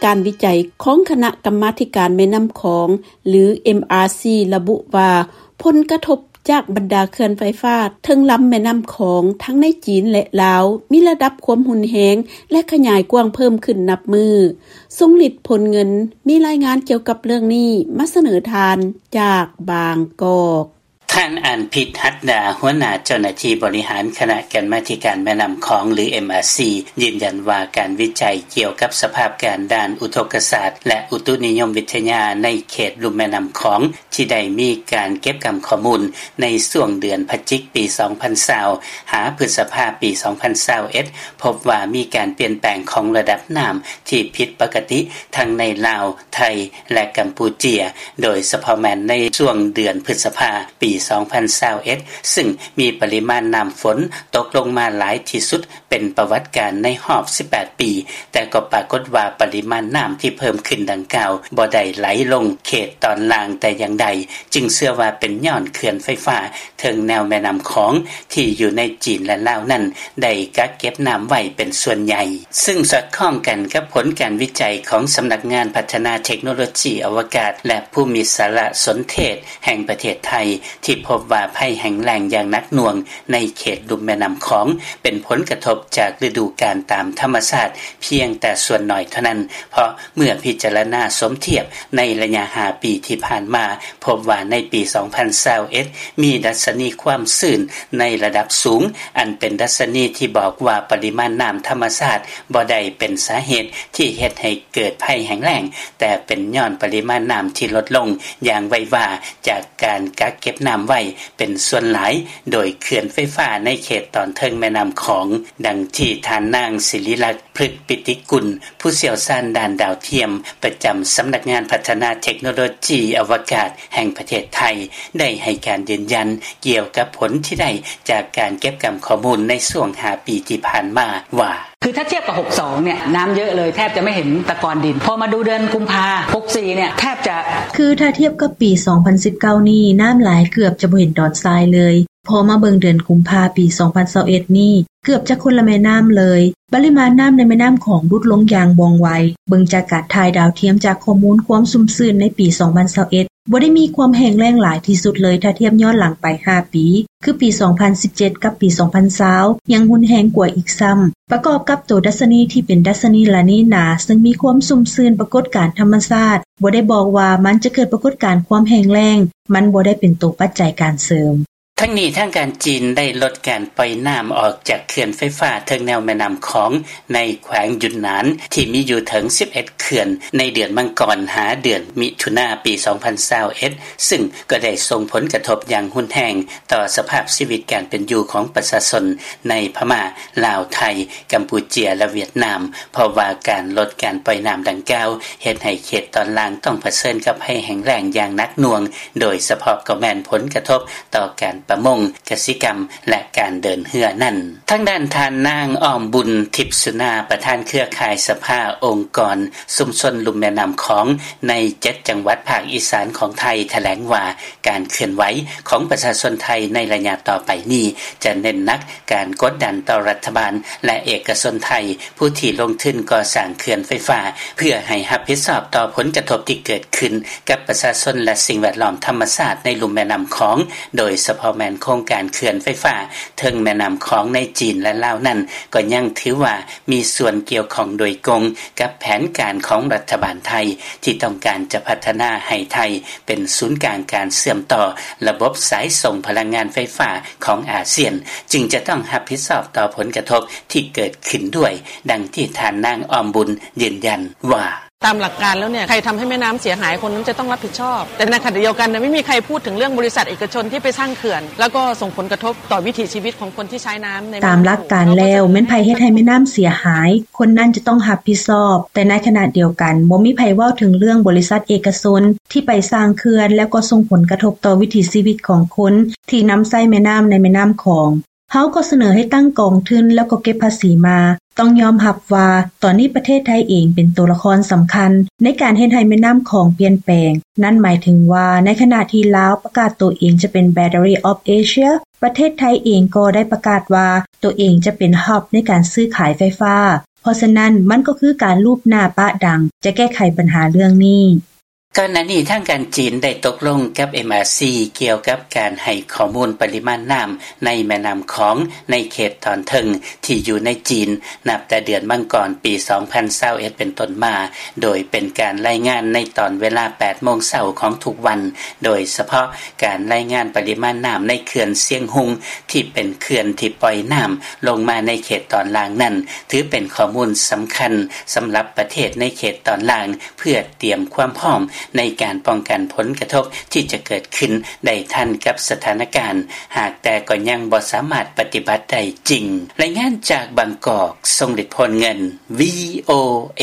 ການວິໄຈຂອງຄະນະກຳມາທິການແມ່ນ້ຳຂອງ ຫຼື ເອັມອາຊີ ລະບຸວ່າ ຜົນກະທົບຈາກບັນດາເຂື່ອນໄຟຟ້າເທິງລຳແມ່ນ້ຳຂອງ ທັງໃນຈີນ ແລະ ລາວ ມີລະດັບຄວາມຮຸນແຮງ ແລະ ຂະຫຍາຍກວ້າງເພີ່ມຂຶ້ນນັບມື້. ຊົງລິດ ພົນເງິນ ມີລາຍງານກ່ຽວກັບເລື່ອງນີ້ມາສະເໜີທ່ານຈາກບາງກອກ. ທ່ານ ອານພິດ ຫັດດາ ຫົວໜ້າເຈົ້າໜ້າທີ່ບໍລິຫານຄະນະກຳມາທິການແມ່ນ້ຳຂອງ ຫຼື ເອັມອາຊີ ຢືນຢັນວ່າ ການວິໄຈກ່ຽວກັບສະພາບການດ້ານອຸທົກກະສາດ ແລະ ອຸຕຸນິຍົມວິທະຍາໃນເຂດລຸ່ມແມ່ນ້ຳຂອງ ທີ່ໄດ້ມີການເກັບກຳຂໍ້ມູນໃນຊ່ວງເດືອນພະຈິກປີສອງພັນຊາວ ຫາພຶດສະພາປີສອງພັນຊາວເອັດ ພົບວ່າມີການປ່ຽນແປງຂອງລະດັບນ້ຳທີ່ຜິດປົກກະຕິ ທັງໃນລາວ, ໄທ ແລະ ກຳປູເຈຍ ໂດຍສະເພາະແມ່ນໃນຊ່ວງເດືອນພຶດສະພາປີສອງພັນຊາວເອັດ ຊຶ່ງມີປະລິມານນ້ຳຝົນຕົກລົງມາຫຼາຍທີ່ສຸດເປັນປະຫວັດການໃນຮອບສິບແປດປີ, ແຕ່ກໍປາກົດວ່າປະລິມານນ້ຳທີ່ເພີ່ມຂຶ້ນດັ່ງກ່າວບໍ່ໄດ້ໄຫຼລົງເຂດຕອນລ່າງແຕ່ຢ່າງໃດ, ຈຶ່ງເຊື່ອວ່າເປັນຍ້ອນເຂື່ອນໄຟຟ້າເທິງແນວແມ່ນ້ຳຂອງທີ່ຢູ່ໃນຈີນ ແລະ ລາວນັ້ນ ໄດ້ກັກເກັບນ້ຳໄວ້ເປັນສ່ວນໃຫຍ່. ຊຶ່ງສອດຄ່ອງກັນກັບຜົນການວິໄຈຂອງສຳນັກງານພັດທະນາເທັກໂນໂລຈີອະວະກາດ ແລະ ພູມິສາລະສົນເທດແຫ່ງປະເທດໄທ ທີ່ພົບວ່າໄພແຫ້ງແລ້ງຢ່າງໜັກໜ່ວງໃນເຂດລຸ່ມແມ່ນ້ຳຂອງ ເປັນຜົນກະທົບຈາກລະດູການຕາມທຳມະຊາດພຽງແຕ່ສ່ວນໜ້ອຍເທົ່ານັ້ນ, ເພາະເມື່ອພິຈາລະນາສົມທຽບໃນໄລຍະຫ້າປີທີ່ຜ່ານມາ ພົບວ່າໃນປີສອງພັນຊາວເອັດ ມີດັດຊະນີຄວາມຊື້ນໃນລະດັບສູງ ອັນເປັນດັດຊະນີທີ່ບອກວ່າປະລິມານນ້ຳທຳມະຊາດບໍ່ໄດ້ເປັນສາເຫດທີ່ເຮັດໃຫ້ເກີດໄພແຫ້ງແລ້ງ, ແຕ່ເປັນຍ້ອນປະລິມານນ້ຳທີ່ລົດລົງຢ່າງໄວວາຈາກການກັກເກັບນ້ຳໄວ້ເປັນສ່ວນຫຼາຍໂດຍເຂື່ອນໄຟຟ້າໃນເຂດຕອນເທິງແມ່ນ້ຳຂອງ, ດັ່ງທີ່ທ່ານນາງ ສິລິລັກ ພຶກປິຕິກຸນ ຜູ້ຊ່ຽວຊານດ້ານດາວທຽມ ປະຈຳສຳນັກງານພັດທະນາເທັກໂນໂລຈີອະວະກາດແຫ່ງປະເທດໄທ ໄດ້ໃຫ້ການຢືນຢັນກ່ຽວກັບຜົນທີ່ໄດ້ຈາກການເກັບກຳຂໍ້ມູນໃນຊ່ວງຫ້າປີທີ່ຜ່ານມາວ່າ: ຄືຖ້າທຽບກັບຫົກສອງເນຍ ນ້ຳເຍອະເລີຍ ແທບຈະໄມ່ເຫັນຕະກອນດິນ. ພໍມາດູເດືອນກຸມພາຫົກສີ່ເນຍ ແທບຈະ ຄືຖ້າທຽບກັບປີສອງພັນສິບເກົ້ານີ້ ນ້ຳຫຼາຍເກືອບຈະບໍ່ເຫັນດອນຊາຍເລີຍ. ພໍມາເບິ່ງເດືອນກຸມພາປີສອງພັນຊາວເອັດນີ້ ເກືອບຈະຄົນລະແມ່ນ້ຳເລີຍ. ປະລິມານນ້ຳໃນແມ່ນ້ຳຂອງຫຼຸດລົງຢ່າງວ່ອງໄວ. ເບິ່ງຈາກການຖ່າຍດາວທຽມຈາກຂໍ້ມູນຄວາມຊຸ່ມຊື່ນໃນປີສອງພັນຊາວເອັດ ບໍ່ໄດ້ມີຄວາມແຫ້ງແລ້ງຫຼາຍທີ່ສຸດເລີຍ ຖ້າທຽບຍ້ອນຫຼັງໄປຫ້າປີ ຄືປີສອງພັນສິບເຈັດ ກັບປີສອງພັນຊາວ ຍັງຮຸນແຮງກວ່າອີກຊ້ຳ. ປະກອບກັບໂຕດັດຊະນີທີ່ເປັນດັດຊະນີລານີນາ ເຊິ່ງມີຄວາມຊຸ່ມຊື່ນປາກົດການທຳມະຊາດ ບໍ່ໄດ້ບອກວ່າມັນຈະເກີດປາກົດການຄວາມແຫ້ງແລ້ງ, ມັນບໍ່ໄດ້ເປັນໂຕປັດໄຈການເສີມ. ທັງນີ້ ທາງການຈີນໄດ້ລົດການປ່ອຍນ້ຳອອກຈາກເຂື່ອນໄຟຟ້າເທິງແນວແມ່ນ້ຳຂອງໃນແຂວງຢຸນນານ ທີ່ມີຢູ່ເຖິງສິບເອັດເຂື່ອນ ໃນເດືອນມັງກອນຫາເດືອນມິຖຸນາປີສອງພັນຊາວເອັດ ຊຶ່ງກໍໄດ້ສົ່ງຜົນກະທົບຢ່າງຮຸນແຮງຕໍ່ສະພາບຊີວິດການເປັນຢູ່ຂອງປະຊາຊົນໃນພະມ້າ, ລາວ, ໄທ, ກຳປູເຈຍ ແລະ ຫວຽດນາມ, ເພາະວ່າການລົດການປ່ອຍນ້ຳດັ່ງກ່າວ ເຮັດໃຫ້ເຂດຕອນລ່າງຕ້ອງປະເຊີນກັບໄພແຫ້ງແລ້ງຢ່າງໜັກໜ່ວງ, ໂດຍສະເພາະກໍແມ່ນຜົນກະທົບຕໍ່ການປະມົງ, ກະສິກຳ ແລະ ການເດີນເຮືອນັ້ນ. ທາງດ້ານທ່ານນາງ ອ້ອມບຸນ ທິບສຸນາ ປະທານເຄືອຂ່າຍສະພາອົງກອນຊຸມຊົນລຸ່ມແມ່ນ້ຳຂອງໃນເຈັດຈັງຫວັດພາກອີສານຂອງໄທ ຖະແຫຼງວ່າ ການເຄື່ອນໄຫວຂອງປະຊາຊົນໄທໃນໄລຍະຕໍ່ໄປນີ້ ຈະເນັ້ນໜັກການກົດດັນຕໍ່ລັດຖະບານ ແລະ ເອກະຊົນໄທ ຜູ້ທີ່ລົງທຶນກໍ່ສ້າງເຂື່ອນໄຟຟ້າ ເພື່ອໃຫ້ຮັບຜິດຊອບຕໍ່ຜົນກະທົບທີ່ເກີດຂຶ້ນກັບປະຊາຊົນ ແລະ ສິ່ງແວດລ້ອມທຳມະຊາດໃນລຸ່ມແມ່ນ້ຳຂອງ, ໂດຍສະເພາະແມ່ນໂຄງການເຂື່ອນໄຟຟ້າເທິງແມ່ນ້ຳຂອງໃນຈີນ ແລະ ລາວນັ້ນ ກໍຍັງຖືວ່າມີສ່ວນກ່ຽວຂ້ອງໂດຍກົງກັບແຜນການຂອງລັດຖະບານໄທ ທີ່ຕ້ອງການຈະພັດທະນາໃຫ້ໄທເປັນສູນກາງການເຊື່ອມຕໍ່ລະບົບສາຍສົ່ງພະລັງງານໄຟຟ້າຂອງອາຊຽນ, ຈຶ່ງຈະຕ້ອງຮັບຜິດຊອບຕໍ່ຜົນກະທົບທີ່ເກີດຂຶ້ນດ້ວຍ, ດັ່ງທີ່ທ່ານນາງ ອ້ອມບຸນ ຢືນຢັນວ່າ: ຕາມຫຼັກການແລ້ວเนี่ย ใครทำให้แม่น้ำเสียหาย คนนั้นจะต้องรับผิดชอบ แต่ในขณะเดียวกันเนี่ย ไม่มีใครพูดถึงเรื่องบริษัทเอกชนที่ไปสร้างเขื่อน แล้วก็ส่งผลกระทบต่อวิถีชีวิตของคนที่ใช้น้ำในแม่น้ำโขง ຕາມຫຼັກການແລ້ວ ແມ່ນໃຜເຮັດໃຫ້ແມ່ນ້ຳເສຍຫາຍ ຄົນນັ້ນຈະຕ້ອງຮັບຜິດຊອບ, ແຕ່ໃນຂະນະດຽວກັນ ບໍ່ມີໃຜເວົ້າເຖິງເລື່ອງບໍລິສັດເອກະຊົນທີ່ໄປສ້າງເຂື່ອນ ແລ້ວກໍສົ່ງຜົນກະທົບຕໍ່ວິຖີຊີວິດຂອງຄົນທີ່ນຳໃຊ້ແມ່ນ້ຳໃນແມ່ນ້ຳຂອງ. ເຮົາກໍສະເໜີໃຫ້ຕັ້ງກອງທຶນ ແລ້ວກໍເກັບພາສີມາ. ຕ້ອງຍອມຮັບວ່າ ຕອນນີ້ປະເທດໄທເອງເປັນໂຕລະຄອນສຳຄັນໃນການເຮັດໃຫ້ແມ່ນ້ຳຂອງປ່ຽນແປງ. ນັ້ນໝາຍເຖິງວ່າ ໃນຂະນະທີ່ລາວປະກາດໂຕເອງຈະເປັນ Battery of Asia ປະເທດໄທເອງກໍໄດ້ປະກາດວ່າໂຕເອງຈະເປັນ Hub ໃນການຊື້ຂາຍໄຟຟ້າ. ເພາະສະນັ້ນ ມັນກໍຄືການລູບໜ້າປະດັງ ຈະແກ້ໄຂບັນຫາເລື່ອງນີ້. ກ່ອນໜ້ານີ້ ທາງການຈີນ ໄດ້ຕົກລົງກັບ MRC ກ່ຽວກັບການໃຫ້ຂໍ້ມູນປະລິມານນ້ຳ ໃນແມ່ນ້ຳຂອງ ໃນເຂດຕອນເທິງ ທີ່ຢູ່ໃນຈີນ ນັບແຕ່ເດືອນມັງກອນ ປີ 2021 ເປັນຕົ້ນມາ ໂດຍເປັນການລາຍງານ ໃນຕອນເວລາ 8 ໂມງເຊົ້າ ຂອງທຸກວັນ. ໂດຍສະເພາະ ການລາຍງານປະລິມານນ້ຳ ໃນເຂື່ອນຊຽງຮຸງ ທີ່ເປັນເຂື່ອນທີ່ປ່ອຍນ້ຳ ລົງມາໃນເຂດຕອນລ່າງນັ້ນ ຖືເປັນຂໍ້ມູນສຳຄັນ ສຳລັບປະເທດໃນເຂດຕອນລ່າງ ເພື່ອຕຽມຄວາມພ້ອມ ໃນການປ້ອງກັນຜົນກະທົບ ທີ່ຈະເກີດຂຶ້ນ ໄດ້ທັນກັບສະຖານະການ ຫາກແຕ່ກໍຍັງບໍ່ສາມາດປະຕິບັດໄດ້ຈິງ. ລາຍງານຈາກບາງກອກ ຊົງລິດ ໂພນເງິນ VOA.